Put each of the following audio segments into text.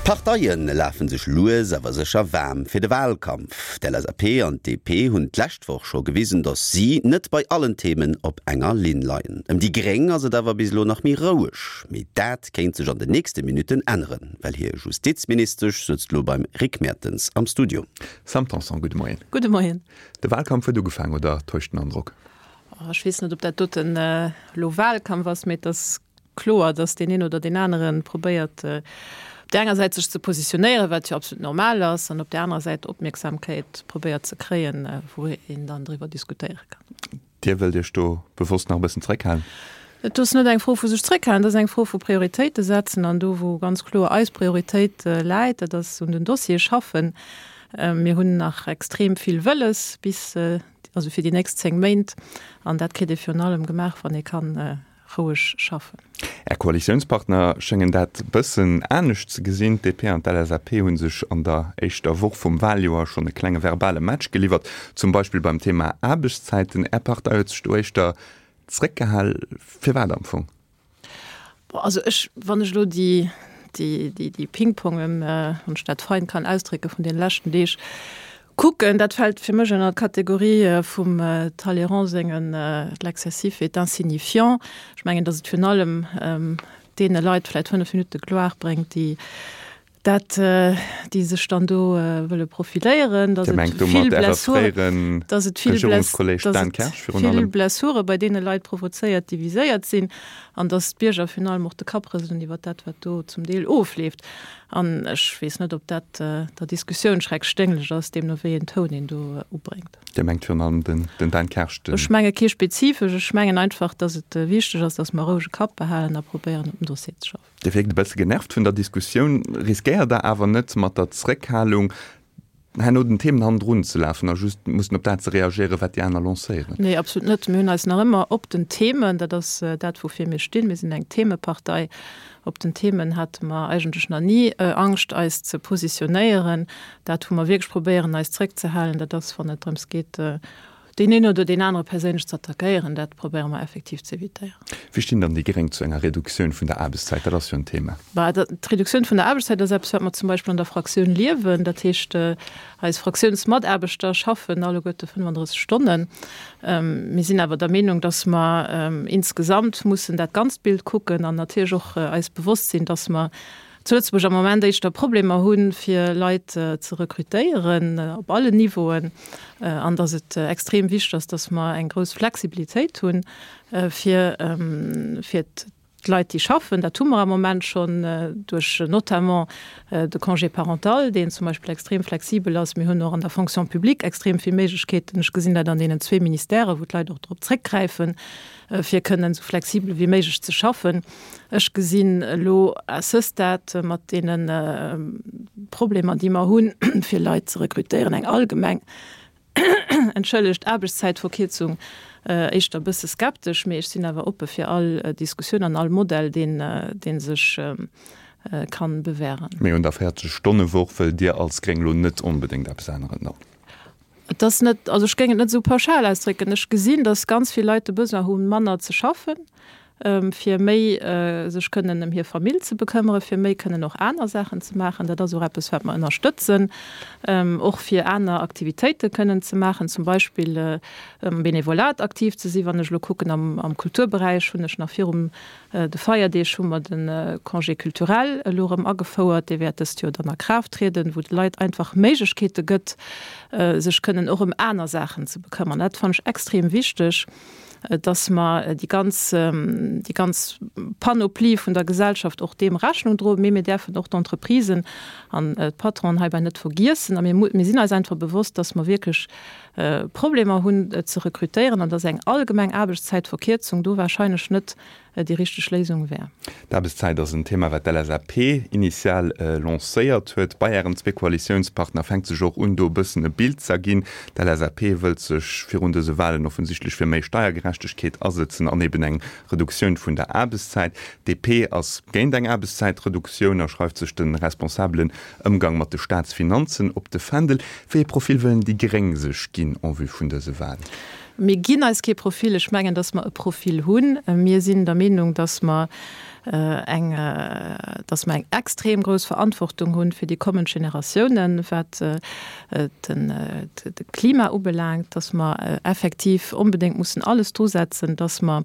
D'Parteie lafe sech lues awer sécher waarm fir de Walkampf. D'LSAP an d'DP hunn d'lescht Woch scho gewisen, datt si net bei allen Themen op enger Linn leien. Ëm déi Gréng ass et awer bis elo nach méi roueg. Mee dat kéint sech an den nächste Minutten änneren, well hir Justizministesch sëtzt elo beim Rick Mertens am Studio. Sam Tanson, gudde Moien. Gudde Moien. De Walkampf huet ugefaangen, oder täuscht den Androck? Ech weess net, ob dat doten elo Walkampf ass, mee et ass kloer, datt deen een oder deen anere probéiert, op där enger Säit sech ze positionéieren, wat jo absolut normal ass, an op där anerer Säit Opmierksamkeit probéiert ze kréien, wou een dann driwwer diskutéiere kann. Dir wëllt Iech do bewosst nach e bëssen zréckhalen? Et ass net eng Fro vu sech zréckhalen, et ass eng Fro vu Prioritéite setzen. An do, wou ganz kloer eis Prioritéit läit, dat ass un den Dossiere schaffen. Mir hunn nach extrem vill wëlles bis, also fir déi nächst 10 Méint. An dat kritt ee virun allem gemaach, wann ee kann roueg schaffen. Är Koalitiounspartner schéngen dat bëssen anescht ze gesinn. D'DP an d'LSAP hu sech an der éischter Woch vum Waljoer schonn e klenge verbale Match geliwwert, zum Beispill beim Thema Aarbechtszäiten. Är Partei huet sech do éischter zréckgehal. Firwat am Fong? Bon, also ech, wann ech elo déi, déi, déi, déi Pingpongen, wann ech dat fein kann ausdrécken, vun deene leschten Deeg kucken, dat fält fir mech ënner d'Kategorie vum Talleyrand sengen L'excessif est insignifiant. Ech mengen, datt et virun allem deene Leit vläicht 5 Minutte Gloire bréngt, déi dat, déi sech dann do wëlle profiléieren, datt et vill Blessuren, datt et vill vill Blessure bei deene Leit provozéiert, déi viséiert sinn, an datt d'Bierger virun allem och de Kapp rëselen iwwer dat, wat do zum Deel ofleeft. An ech weess net, ob dat der Diskussioun schreckschdénglech ass, deemno wéi een Toun een do ubréngt. Dir mengt virun allem den Dan Kersch, den. Ech menge kee spezifesch. Ech mengen einfach, datt et wichteg ass, datt mer e rouege Kapp behalen a probéieren, op dem Dossier ze schaffen. Dir wierkt e bësse genervt vun der Diskussioun. Riskéiert Der awer net mat der Zréckhalung herno den Themen hannendrun ze lafen a just mussen op dat ze reagéieren, wat déi aner lancéieren? Nee, absolut net. Mir hunn eis nach ëmmer op den Themen, dat ass dat, woufir mir stinn, mir sinn eng Themepartei, op den Themen hate mer eigentlech nach ni Angscht, eis ze positionéieren. Dat, wou mer wierklech probéieren, eis zréckzehalen, dat ass, wann et drëms geet, deen een oder deen anere perséinlech ze attackéieren, dat probéiere mer effektiv ze evitéieren. Wéi stinn dann déi Gréng zu enger Reduktioun vun der Aarbechtszäit? Dat ass jo en Thema. Bah, d'Reduktioun vun der Aarbechtszäit ass eppes, wat mer zum Beispill an der Fraktioun liewen. Dat heescht, eis Fraktiounsmataarbechter schaffen alleguerte 35 Stonnen. Mir sinn awer der Meenung, dass mer insgesamt mussen dat ganzt Bild kucken an natierlech och eis bewosst sinn, dass mer zu Lëtzebuerg am Moment éischter Problemer hunn, fir Leit ze rekrutéieren op allen Niveauen, an datt et extrem wichteg ass, datt mer eng grouss Flexibilitéit hunn, fir fir d'Leit, déi schaffen. Dat hu mer am Moment schonn duerch notamment de Congé parental, deen zum Beispill extrem flexibel ass. Mir hunn och an der Fonction publique extrem vill Méiglechkeeten. Ech gesinn dat an deenen zwee Ministèren, wou d'Leit och drop zréckgräifen, fir kënnen esou flexibel wéi méiglech ze schaffen. Ech gesinn elo à ce stade mat deene Problemer, déi mer hunn, fir Leit ze rekrutéieren, eng allgemeng, entschëllegt, Aarbechtszäitverkierzung éischter e bësse skeptesch. Mee ech sinn awer oppe fir all Diskussioun an all Modell, deen, dee sech kann bewähren. Mee un der 40 Stonne-Woch wëllt Dir als Gréng elo net onbedéngt eppes änneren dann? Et ass net, also ech géing et net esou pauschal ausdrécken. Ech gesinn, datt ganz vill Leit de Besoin hunn, manner ze schaffen, fir méi sech kënnen ëm hir Famill ze bekëmmere, fir méi kënnen och aner Saachen ze maachen. Dat ass och eppes, wat mer ënnerstëtzen, och fir aner Aktivitéite kënnen ze maachen, zum Beispill am Benevolat aktiv ze sinn. Wann ech elo kucken am Kulturberäich, hunn ech nach virum de Feierdeeg hu mer de Congé culturel elo erëm agefouert, dee wäert dëst Joer dann a Kraaft trieden, wou de Leit einfach Méiglechkeete gëtt, sech kënnen och ëm aner Saachen ze bekëmmern. Dat fannen ech extrem wichteg, dass mer déi ganz, déi ganz Panoplie vun der Gesellschaft och deem Rechnung droen. Mee mir däerfen och d'Entreprisen an d'Patronen heibäi net vergiessen. A mir, mir sinn eis einfach bewosst, dass mer wierklech Problemer hunn ze rekrutéieren an dass eng allgemeng Aarbechtszäitverkierzung do wahrscheinlech net déi richteg Léisung wär. D'Aarbechtszäit ass en Thema, wat d'LSAP initial lancéiert huet. Bei Ären zwee Koalitiounspartner fänkt sech och un, do e bëssen e Bild z'erginn. D'LSAP wëllt sech virun dëse Walen offensichtlech fir méi Steiergerechtegkeet asëtzen an eben eng Reduktioun vun der Aarbechtszäit. D'DP ass géint eng Aarbechtszäitreduktioun a schreift sech de responsabelen Ëmgang mat de Staatsfinanzen op de Fändel. Wéi ee Profil wëllen déi Gréng sech ginn en vue vun dëse Walen? Mir ginn eis kee Profil. Ech mengen, datt mer e Profil hunn. Mir sinn der Meenung, datt mer. eng, dass mer eng extrem grouss Verantwortung hunn fir déi kommend Generatiounen, wat den de Klima ubelaangt, dass mer effektiv onbedéngt mussen alles drusetzen, dass mer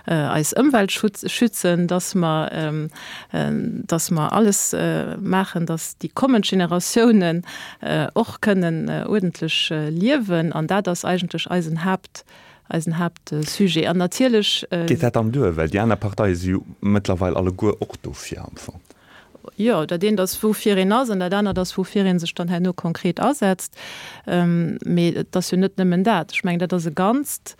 eis Ëmwelt schützen, dass mer, dass mer alles maachen, dass déi kommend Generatiounen och kënnen uerdentlech liewen. An dat ass eigentlech eisen Haapt, eisen Haaptsujet. An natierlech. Geet dat dann duer? Well déi aner Parteie si jo mëttlerweil alleguer och dofir am Fong. Jo, dat eent ass, woufir een ass, an dat anert ass, woufir ee sech dann herno konkret asetzt. Mee et ass jo net nëmmen dat. Ech mengen, dat ass e Ganzt.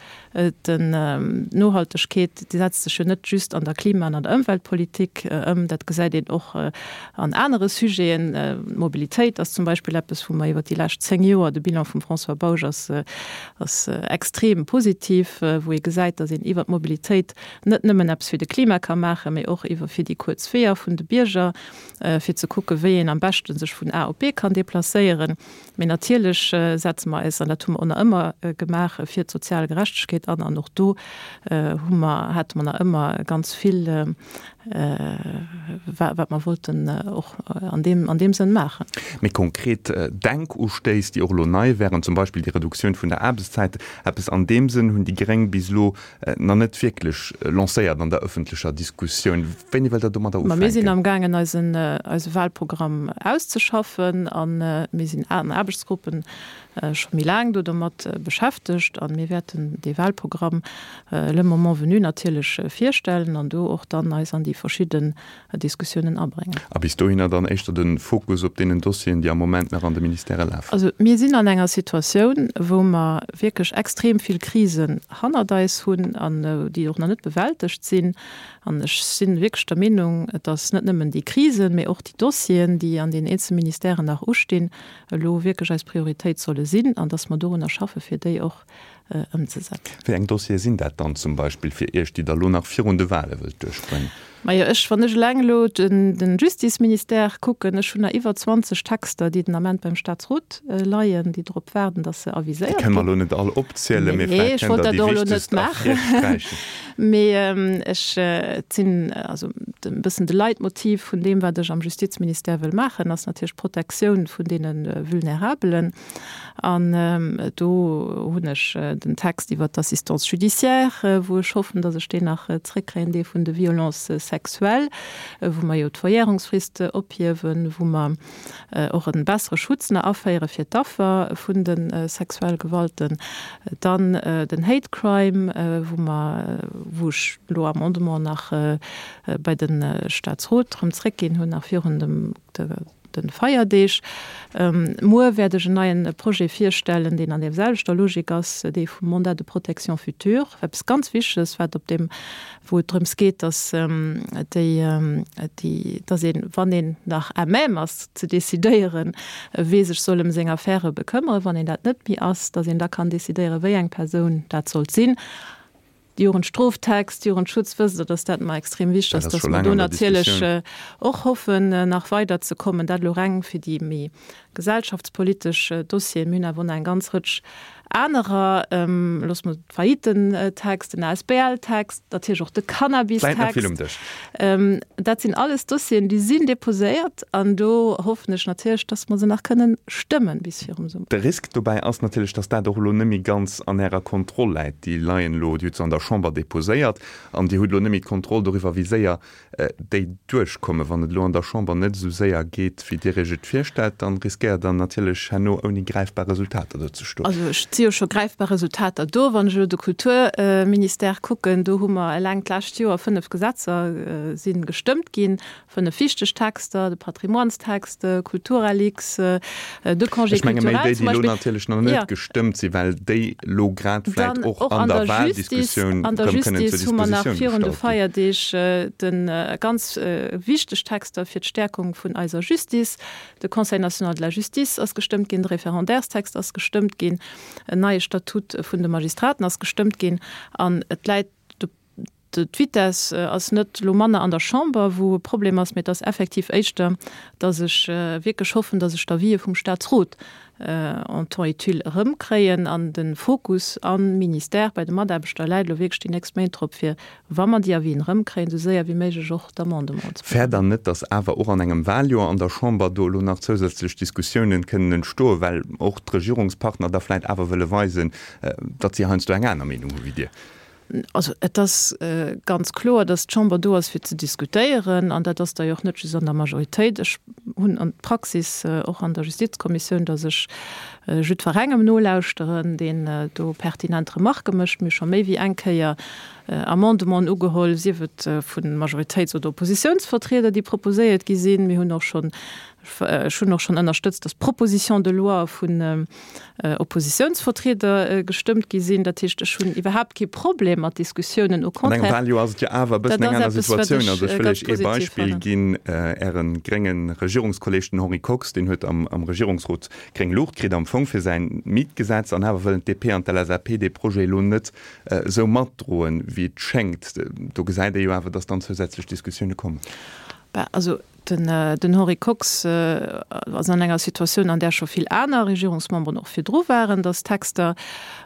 D'Nohaltegkeet, déi setzt sech jo net just an der Klima an an der Ëmweltpolitik ëm. Dat gesäit een och an anere Sujeten. D'Mobilitéit ass zum Beispill eppes, wou mer iwwer déi lescht 10 Joer, de Bilan vum François Bausch ass, ass extrem positiv, wou ee gesäit, datt een iwwer d'Mobilitéit net nëmmen eppes fir de Klima ka maachen, mee och iwwer fir déi kuerz Weeër vun de Bierger, fir ze kucken, wéi een am beschte sech vun A op B kann deplacéieren. Mee natierlech setze mer eis, an dat hu mer och nach ëmmer gemaach, fir d'sozial Gerechtegkeet an. An och do hu mer, hate mer nach ëmmer ganz vill, wat mer wollten och an deem, an deem Sënn maachen. Méi konkret Denkustéiss, déi och elo nei wären, zum Beispill déi Reduktioun vun der Aarbechtszäit, eppes an deem Sënn hunn déi Gréng bis elo nach net wierklech lancéiert an der ëffentlecher Diskussioun. Wéini wëllt Der domadder ufänken? Ma mir sinn amgaangen eisen eise Wahlprogramm auszeschaffen a mir sinn an Aarbechtsgruppen scho méi laang do domat beschäftegt a mir wäerten dee Wahlprogramm le moment venu natierlech virstellen an do och dann eis an déi verschidden Diskussiounen abréngen. A bis dohinner dann éischter de Fokus op deenen Dossieren, déi am Moment nach an de Ministèrë lafen? Also mir sinn an enger Situatioun, wou mer wierklech extrem vill Krisen hannert eis hunn an déi och nach net bewältegt sinn. An ech si wierklech der Meenung, dass net nëmmen déi Krisen, mee och déi Dossieren, déi an den eenzele Ministèren nach ustinn, elo wierklech eis Prioritéit solle sinn an dass mer dorunner schaffe fir déi och ëmzesetzen. Wéi eng Dossiere sinn dat dann zum Beispill fir Iech, déi Der elo nach virun de Wahle wëllt duerchbréngen? Majo, ech, wann ech eleng elo de Justizministère kucken, ech hunn nach iwwer 20 Texter, déi den Ament beim Statsrot leien, déi drop waarden, datt se aviséiert ginn. Déi kënne mer elo net all opzielen, mee vläicht kënnt Der déi wichtegst ervirsträichen. Mee ech, et sinn, also e bëssen de Leitmotiv vun deem, wat ech am Justizministère wëll maachen, ass natierlech d'Protektioun vun deene Vulnerabelen. An do hunn ech den Text iwwert d'Assistance judiciaire, wou ech hoffen, datt ech deen nach zréckkréien, dee vun de Violences sexuelles, wou mer jo d'Verjährungsfrist ophiewen, wou mer och e bessere Schutz nach aféiere fir d'Affer vun de sexuelle Gewalten. Dann den Hate Crime, wou mer, wou ech elo Amendement nach bei de Statsrot erëm zréckginn hunn, nach virun dem, de Feierdeeg. Muer wäert ech en neien Projet virstellen, deen an deem selwechter Logik ass, dee vum Mandat de protection future, eppes ganz Wichteges, wat op deem, wou et drëms geet, dass déi, déi, dass een, wann een nach à même ass ze decidéieren, wee sech soll ëm seng Affäre bekëmmeren, wann een dat net méi ass, dass een da kann decidéieren, wéi eng Persoun dat sollt sinn. Jugendstroftext, Jugendschutz, wësst Der, dass dat mer extrem wichteg ass, dass mer do natierlech och hoffen, nach weiderzekommen. Dat elo reng fir déi méi gesellschaftspolitesch Dossieren. Mir hunn awer och nach eng ganz Rëtsch anerer, loosse mer d'Faillitentext, den ASBL-Text, natierlech och de Cannabis-Text. Dat sinn alles Dossieren, déi sinn deposéiert an do hoffen ech natierlech, dass mer se nach kënnen stëmmen bis virum Summer. De Risk dobäi ass natierlech, dass dat och elo net méi ganz an Ärer Kontroll läit. Déi leien elo, Dir hutt se an der Chamber deposéiert an Dir hutt elo net méi d'Kontroll doriwwer, wéi séier déi duerchkommen. Wann et elo an der Chamber net esou séier geet, wéi Dir Iech et virstellt, dann riskéiert Der natierlech herno ouni gräifbar Resultater do ze stoen. Also ech si jo scho gräifbar Resultater do. Wann ech elo de Kulturministère kucken, do hu mer eleng d'lescht Joer 5 Gesetzer si gestëmmt ginn, 5 wichteg Texter, de Patrimoinestext, Kulturalix, de Congé Ech menge méi culturel déi, zum déi elo Beispill. natierlech nach net gestëmmt sinn, well déi elo grad vläicht Dann och an der Justice, Wahldiskussioun an der erëm kënnen zur Justice hu mer nach Dispositioun virun de gestallt ginn. Feierdeeg de ganz wichteg Texter fir d'Stärkung vun eiser Justice. De Conseil national de la justice ass gestëmmt ginn, de Référendairestext ass gestëmmt ginn, en neie Statut vun de Magistraten ass gestëmmt ginn an et läit, D'Vitesse ass net elo manner an der Chamber, wou e Problem ass, mee et ass effektiv éischter, dass ech wierklech hoffen, dass ech d'Avisë vum Statsrot. En temps utile erëmkréien. An de Fokus am Ministère bei de Mataarbechter läit elo wierklech déi nächst Méint drop, fir, wa mer déi Avisen erëmkréien, esou séier wéi méiglech och d'Amendementen ze Fäert Der net, datt awer och an engem Wahljoer an der Chamber do elo nach zousätzlech Diskussiounen kënnen entstoen, well och d'Regierungspartner da vläicht awer wëlle weisen, datt si heiansdo eng aner Meenung hu wéi Dir? Also et ass ganz kloer, datt d'Chamber do ass fir ze diskutéieren, an dat ass da jo och net just an der Majoritéit. Ech hunn an d'Praxis och an der Justizkommissioun, datt ech jiddwerengem nolauschteren, deen do pertinent Remarquë mécht. Mir hu scho méi wéi eng Kéier Amendementen ugeholl, sief et vu Majoritéits oder Oppositiounsvertrieder, déi proposéiert gi sinn. Mir hunn och schonn, ech hunn och schonn ënnerstëtzt, datt Propositions de loi vun Oppositiounsvertrieder gestëmmt gi sinn. Dat heescht, ech hunn iwwerhaapt kee Problem mat Diskussiounen, au contraire. An engem Wahljoer ass et jo awer e bëssen eng aner Situatioun. Also ech wëll Iech ee Beispill ginn, Äre grénge Regierungskolleeg, den Henri Kox, deen huet am Regierungsrot gréng Luucht kritt am Fong fir säin Mietgesetz, an awer wëllen d'DP an d'LSAP dee Projet elo net esou matdroen, wéi et schéngt. Do gesäit ee jo awer, datt dann zousätzlech Diskussioune kommen. Bah, also Den Henri Kox ass an enger Situatioun, an där scho vill aner Regierungsmemberen och virdru waren, datt Texter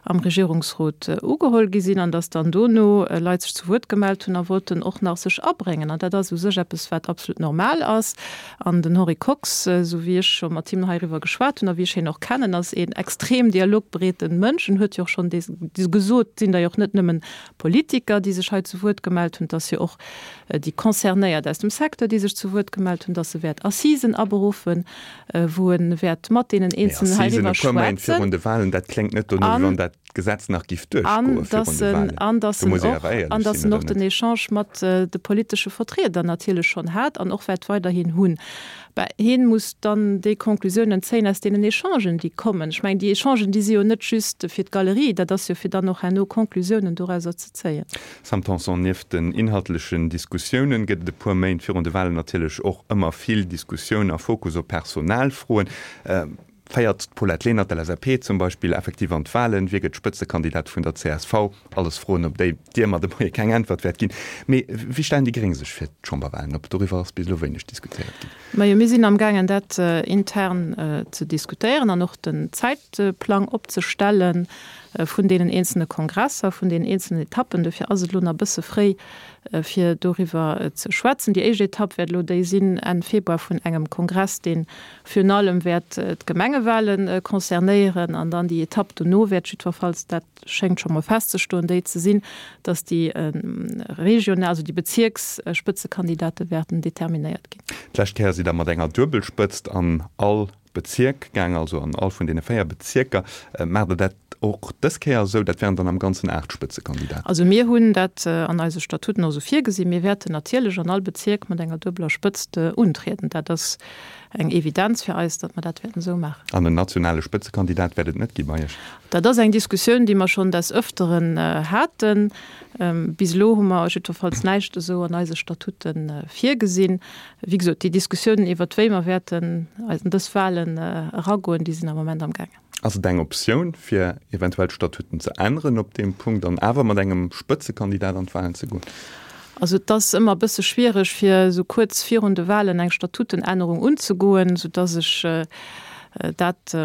am Regierungsrot ugeholl gi sinn an datt dann dono Leit sech zu Wuert gemellt hunn a wollten och nach sech abréngen. An dat ass u sech eppes, wat absolut normal ass. An den Henri Kox, esou wéi ech scho mat him heiriwwer geschwat hunn a wéi ech hien och kennen, ass een extrem dialogbereete Mënsch en huet jo och schonn gesot, et sinn der jo och net nëmmen Politiker, déi sech hei zu Wuert gemellt hunn, et ass jo och déi Concernéiert aus dem Secteur, déi sech zu Wuert gemellt hunn, dass e wäert Assisen aberuffen, wou e wäert mat deenen Eenzelnen heiriwwer schwätzen. Mee Assisen e puer Méint virun de Wahlen, dat kléngt net dono, wéi wann dat Gesetz nach giff duerchgoe virun de Wahlen. An dass en och, an dass en och den Echange mat de politesche Vertrieder natierlech schonn hat an och wäert weiderhin hunn. Bah, hien muss dann déi Conclusiounen zéien aus deenen Echangen, déi kommen. Ech mengen, déi Echangen, déi si jo net just fir d'Galerie, dat ass jo fir dann och herno Conclusiounen dorauser ze zéien. Sam Tanson, Nieft den inhaltlechen Diskussiounen gëtt et e puer Méint virun de Wahlen natierlech och ëmmer vill Diskussioun a Fokus op Personalfroen. Féiert d'Paulette Lenert, LSAP, zum Beispill effektiv an d'Wahlen? Wie gëtt Spëtzekandidat vun der csv? Alles Froen, op déi Dir mer de Moie keng Äntwert wäert ginn. Mee wéi stellen déi Gréng sech fir d'Chamberwahlen op? Doriwwer ass bis elo wéineg diskutéiert ginn. Majo, mir sinn amgaangen dat intern ze diskutéieren an och den Zäitplang opzestelle vun deenen eenzelne Kongresser, vun deenen eenzelnen Etappen. Dofir ass et elo nach e bësse fréi, fir doriwwer ze schwätzen. Déi éischt Etapp wäert elo déi sinn Enn Februar vun engem Kongress, dee Virun allem wäert d'Gemengewale concernéieren an dann déi Etapp dono wäert jiddwerfalls, dat schéngt scho mol festzestoen, déi ze sinn, datt déi regional, also déi Bezierksspëtzekandidate wäerten determinéiert ginn. D'lescht Kéier sidd Der mat enger Duebelspëtzt an all Bezierk gaang, also an all vun deene 4 Bezierker. Maacht Der dat och dës Kéier esou? Dat wären dann am Ganzen 8 Spëtzekandidaten. Also mir hunn dat an eise Statuten och esou virgesinn. Mir wäerten natierlech an all Bezierk mat enger duebeler Spëtzt untrieden. Dat ass eng Evidenz fir eis, datt mer dat wäerten esou maachen. An en nationale Spëtzekandidat wäert et net gi bei Iech? Dat ass eng Diskussioun, déi mer schonn des Ëfteren haten. Bis elo hu mer jiddwerfalls näischt esou an eise Statute virgesinn. Wéi gesot, déi Diskussiounen iwwert wéi mer wäerten an dës Wahlen eragoen, déi sinn am Moment amgaangen. Ass et eng Optioun, fir eventuell d'Statuten ze änneren op deem Punkt an awer mat engem Spëtzekandidat an d'Wahlen ze goen? Also et ass ëmmer e bësse schwiereg, fir esou kuerz virun de Wahlen eng Statutenännerung unzegoen, soudass ech dat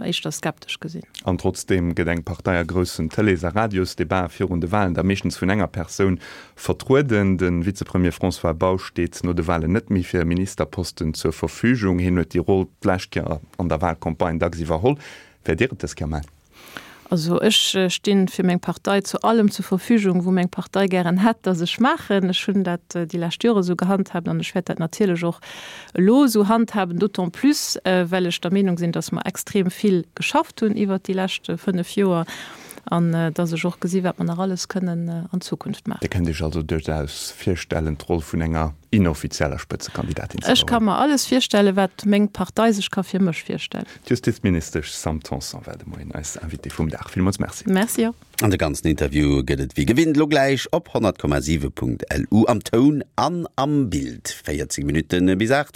éischter skeptesch gesinn. An trotzdeem gëtt eng Partei a groussen Tëlees a Radiosdebaten virun de Wahlen da meeschtens vun enger Persoun vertrueden. De Vizepremier François Bausch steet no de Wahlen net méi fir e Ministerposten zur Verfügung. Hien huet déi Roll d'lescht Kéier an der Wahlcampagne dacks iwwerholl. Wäert Dir et dës Kéier maachen? Also ech sti fir meng Partei zu allem zur Verfügung, wou meng Partei gären hätt, datt ech maachen. Ech hunn dat déi lescht Jore esou gehandhaabt an ech wäert dat natierlech och elo esou handhaben, d'autant plus well ech der Meenung sinn, datt mer extrem vill geschafft hunn iwwert déi lescht 5 Joer an datt ech och gesi wat mer nach alles kënnen an Zukunft maachen. Dir kënnt Iech also duerchaus virstellen, d'Roll vun enger inoffizieller Spëtzekandidatin ze Ech ka mer alles virstellen, wat meng Partei sech ka fir mech virstellen. D'Justizministesch Sam Tanson war de Moien eis Invitée vum Dag. Villmools Merci. Merci och. An de ganzen Interview gëtt et wéi gewinnt lo gläich op 100,7.lu am Toun an am Bild. 14 Minutte bis 8.